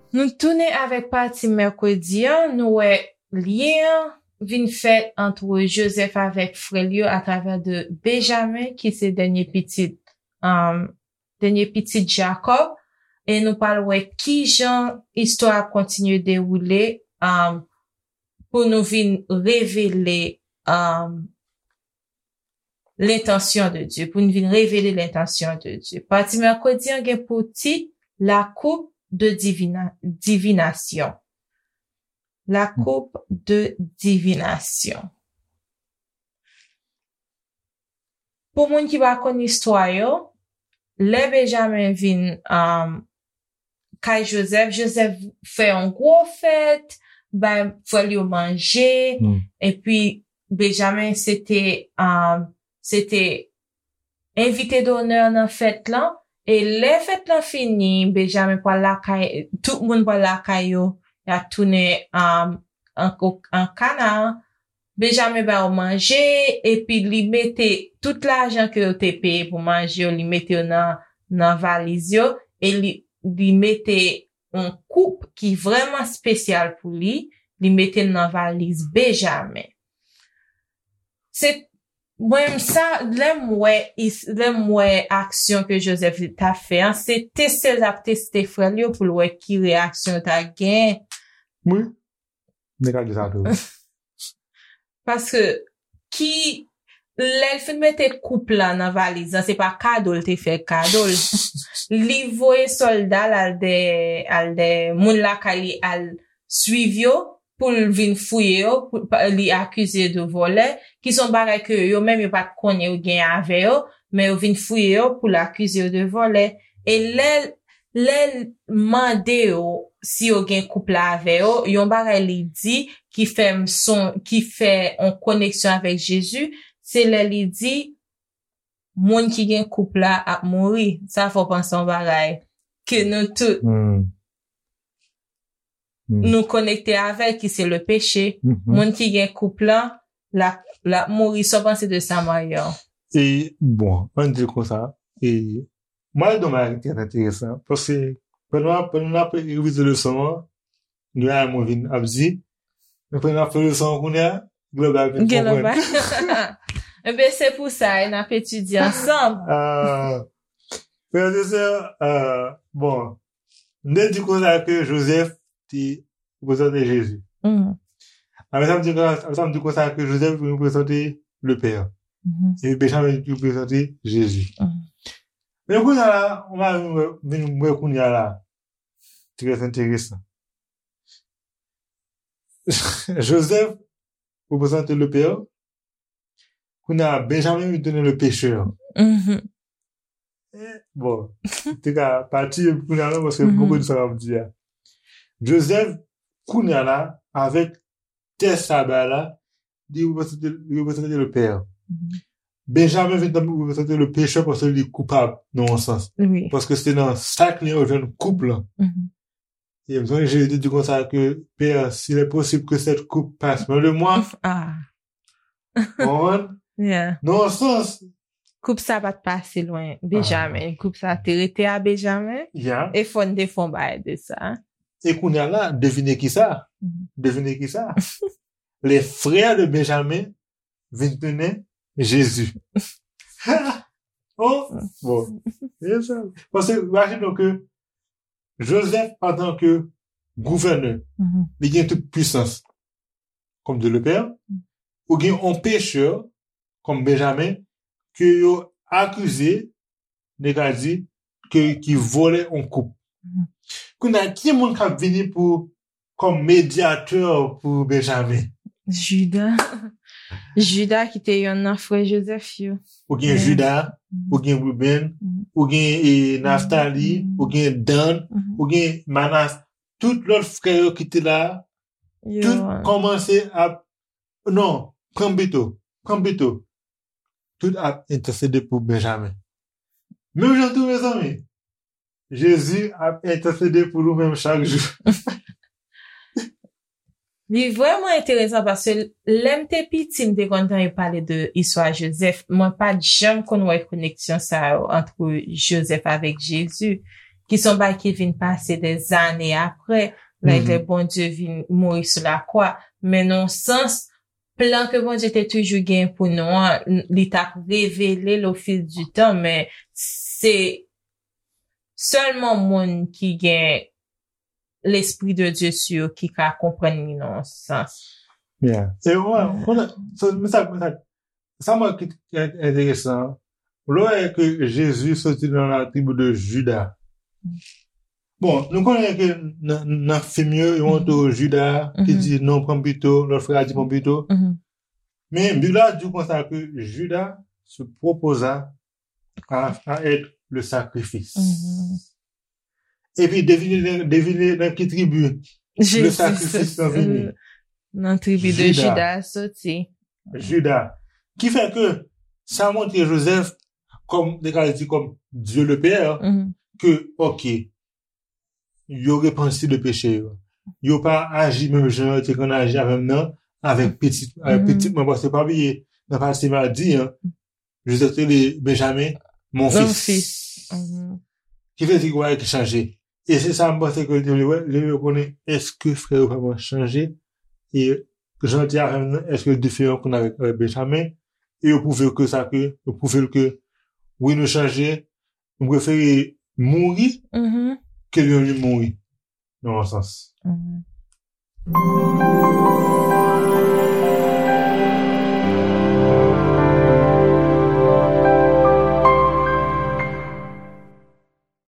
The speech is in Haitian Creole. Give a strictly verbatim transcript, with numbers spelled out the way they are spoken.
Nou tounen avèk pati mèkredi an, nou wè lyen an vin fèt ant Jozèf avèk frè l yo atravè de Benjamen, ki se dènye pitit, um, dènye pitit Jakòb, e nou pral wè kijan istwa a kontinye dewoule, um, pou nou vin revele, um, lentansyon de Dye, pou nou vin revele lentansyon de Dye. Pati mèkredi an gen pou tit La coupe de divina, divination. La coupe de divination. Pou moun ki pa konn istwa yo, lè Benjamen vin, um, kay Jozèf, Jozèf fè yon gwo fèt, bay frè l yo manje, epi Benjamen se te, um, se te envite donè nan fèt lan, e lè fèt lan fini, Benjamen pral lakay, tout moun pral lakay yo, y ap tounen, um, an, an Kanaan. Benjamen ba yo manje, epi li mete tout lajan ke yo te peye pou manje yo, li mete yo nan, nan valiz yo, e li, li mete yon koup ki vrèman espesyal pou li, li mete l nan valiz Benjamen. Se, mwen, sa, lè m wè, is- lè m wè aksyon ke Jozèf t ap fè an, se teste l t ap teste frè l yo pou l wè ki reyaksyon yo ta gen. Wi. Nèg la di sa tou. Paske ki, lè l fin mete koup la nan valiz lan, se pa kado l te fè kado l. Li voye sòlda l al dè, al dè moun lakay li al swiv yo pou l vin fouye yo, pou, pa- li akize yo de vòlè, ki se yon bagay ke yo menm yo pa t konnen yo gen avè yo, men yo vin fouye yo pou l akize yo de vòlè. E lè, lè l mande yo si yo gen koup la avè yo, yon bagay li di ki fè m son, ki fè yon koneksyon avèk Jezi, se lè li di, moun ki gen koup la ap mouri. Sa fè w panse yon bagay ke nou tout nou konekte avè l, ki se le peche. Moun ki gen koup la, l ap, l ap mouri. Sa w panse de sa, Mario? E, bon, ann di l konsa, e, mwen, l di yon bagay ki trè enteresan, paske pandan, pandan n ap revize leson an, gen bagay mwen vin ap di, men pandan n ap fè leson an kounye a, gen lòt bagay vin konprann. Enben, se pou sa, e n ap etidye ansanm. Ah, frè e sè, ah, bon, m te di konsa ke Jozèf te reprezante Jezi. Apre sa, m di konsa, apre sa, m di konsa ke Jozèf reprezante le Père. Epi Benjamen reprezante Jezi. Men kounye a la, on va vin wè, vin wè kounye a la. Trè enteresan. Jozèf reprezante le Père. Kounye a, Benjamen li tounen le pécheur. Eh, bon, te ka pati kounye a la, paske m poko di sa m ap di a. Jozèf, kounye a la, avèk tès sa bay la, li reprezante, li reprezante le père. Benjamen vin tankou reprezante le pécheur paske li koupab nan yon sans. Paske se nan sa k li yo jwenn koup lan. E m sonje Jezi te di konsa ke, Père, s'il est possible que cette coupe passe loin de moi. Ou konprann? Nan yon sans. Koup sa pa t pase lwen Benjamen. Koup sa te rete a Benjamen. E fò n te fè yon bagay de sa. E kounye a la, devine kisa? Devine kisa? Les frères de Benjamin vin tounen Jezi. Oh, bon. Paske, imajine w ke Jozèf, antanke gouvènè, li gen tout pwisans, comme Dieu le Père, ou gen yon pécheur, comme Benjamin, ke yo akize, nèg la di, ke, ki vòlè yon koup. Kounye a, ki moun k ap vini pou, comme médiateur pour Benjamin? Jida. Jida ki te yonn nan frè Jozèf yo. Ou gen Jida, ou gen Ruben, ou gen, e, Naftali, ou gen Dan, ou gen Manas. Tout lòt frè yo ki te la, tout kòmanse ap, non, pran m pito, pran m pito. Tout ap entèsede pou Benjamen. Menm jan tou, mezanmi, Jezi ap entèsede pou nou menm chak jou. Li vrèman enteresan paske lè m te piti, m te konn tande pale de istwa Jozèf. Mwen pa t janm konn wè koneksyon sa yo ant Jozèf avèk Jezi, ki se yon bagay ki vin pase dèzane apre, lè Bondye vin mouri sou lakwa. Men nan yon sans, plan ke Bondye te toujou gen pou nou an, li t ap revele l o fil di tan, men se sèlman moun ki gen Lespri de Dye sou yo ki ka konprann li nan yon sans. Yeah. E wè, konnen, sa, men sa, men sa, sa mwen ki enteresan, lè w wè ke Jezi soti nan la tribi de Jida. Bon, nou konnen ke nan, nan fim yo, yo montre Jida ki di non, pran m pito, lòt frè a di pran m pito. Men Bib la di w konsa ke Jida se propoza a, a être le sacrifice. Epi devine, devine nan ki tribi le sakrifis lan vini. Nan tribi de Jida soti. Jida. Ki fè ke sa montre Jozèf, kòm, de ka di kòm Dieu le Père, ke, ok, yo repanti de peche yo. Yo pa aji menm jan yo te konn aji avè m nan, avèk pitit, avèk pitit mwen, paske pa bliye, nan pase m a di, an, Jozèf te rele Benjamen, mon fils. Ki vle di bagay ki chanje. E se sa m panse ke li te vle wè, li vle konnen èske frè yo vrèman chanje, e jan l te avè m nan, èske l diferan kounye a avèk, avèk Benjamen, e yo pwouve ke sa ke, yo pwouve l ke, wi, nou chanje, nou prefere mouri ke l menm li mouri, nan yon sans.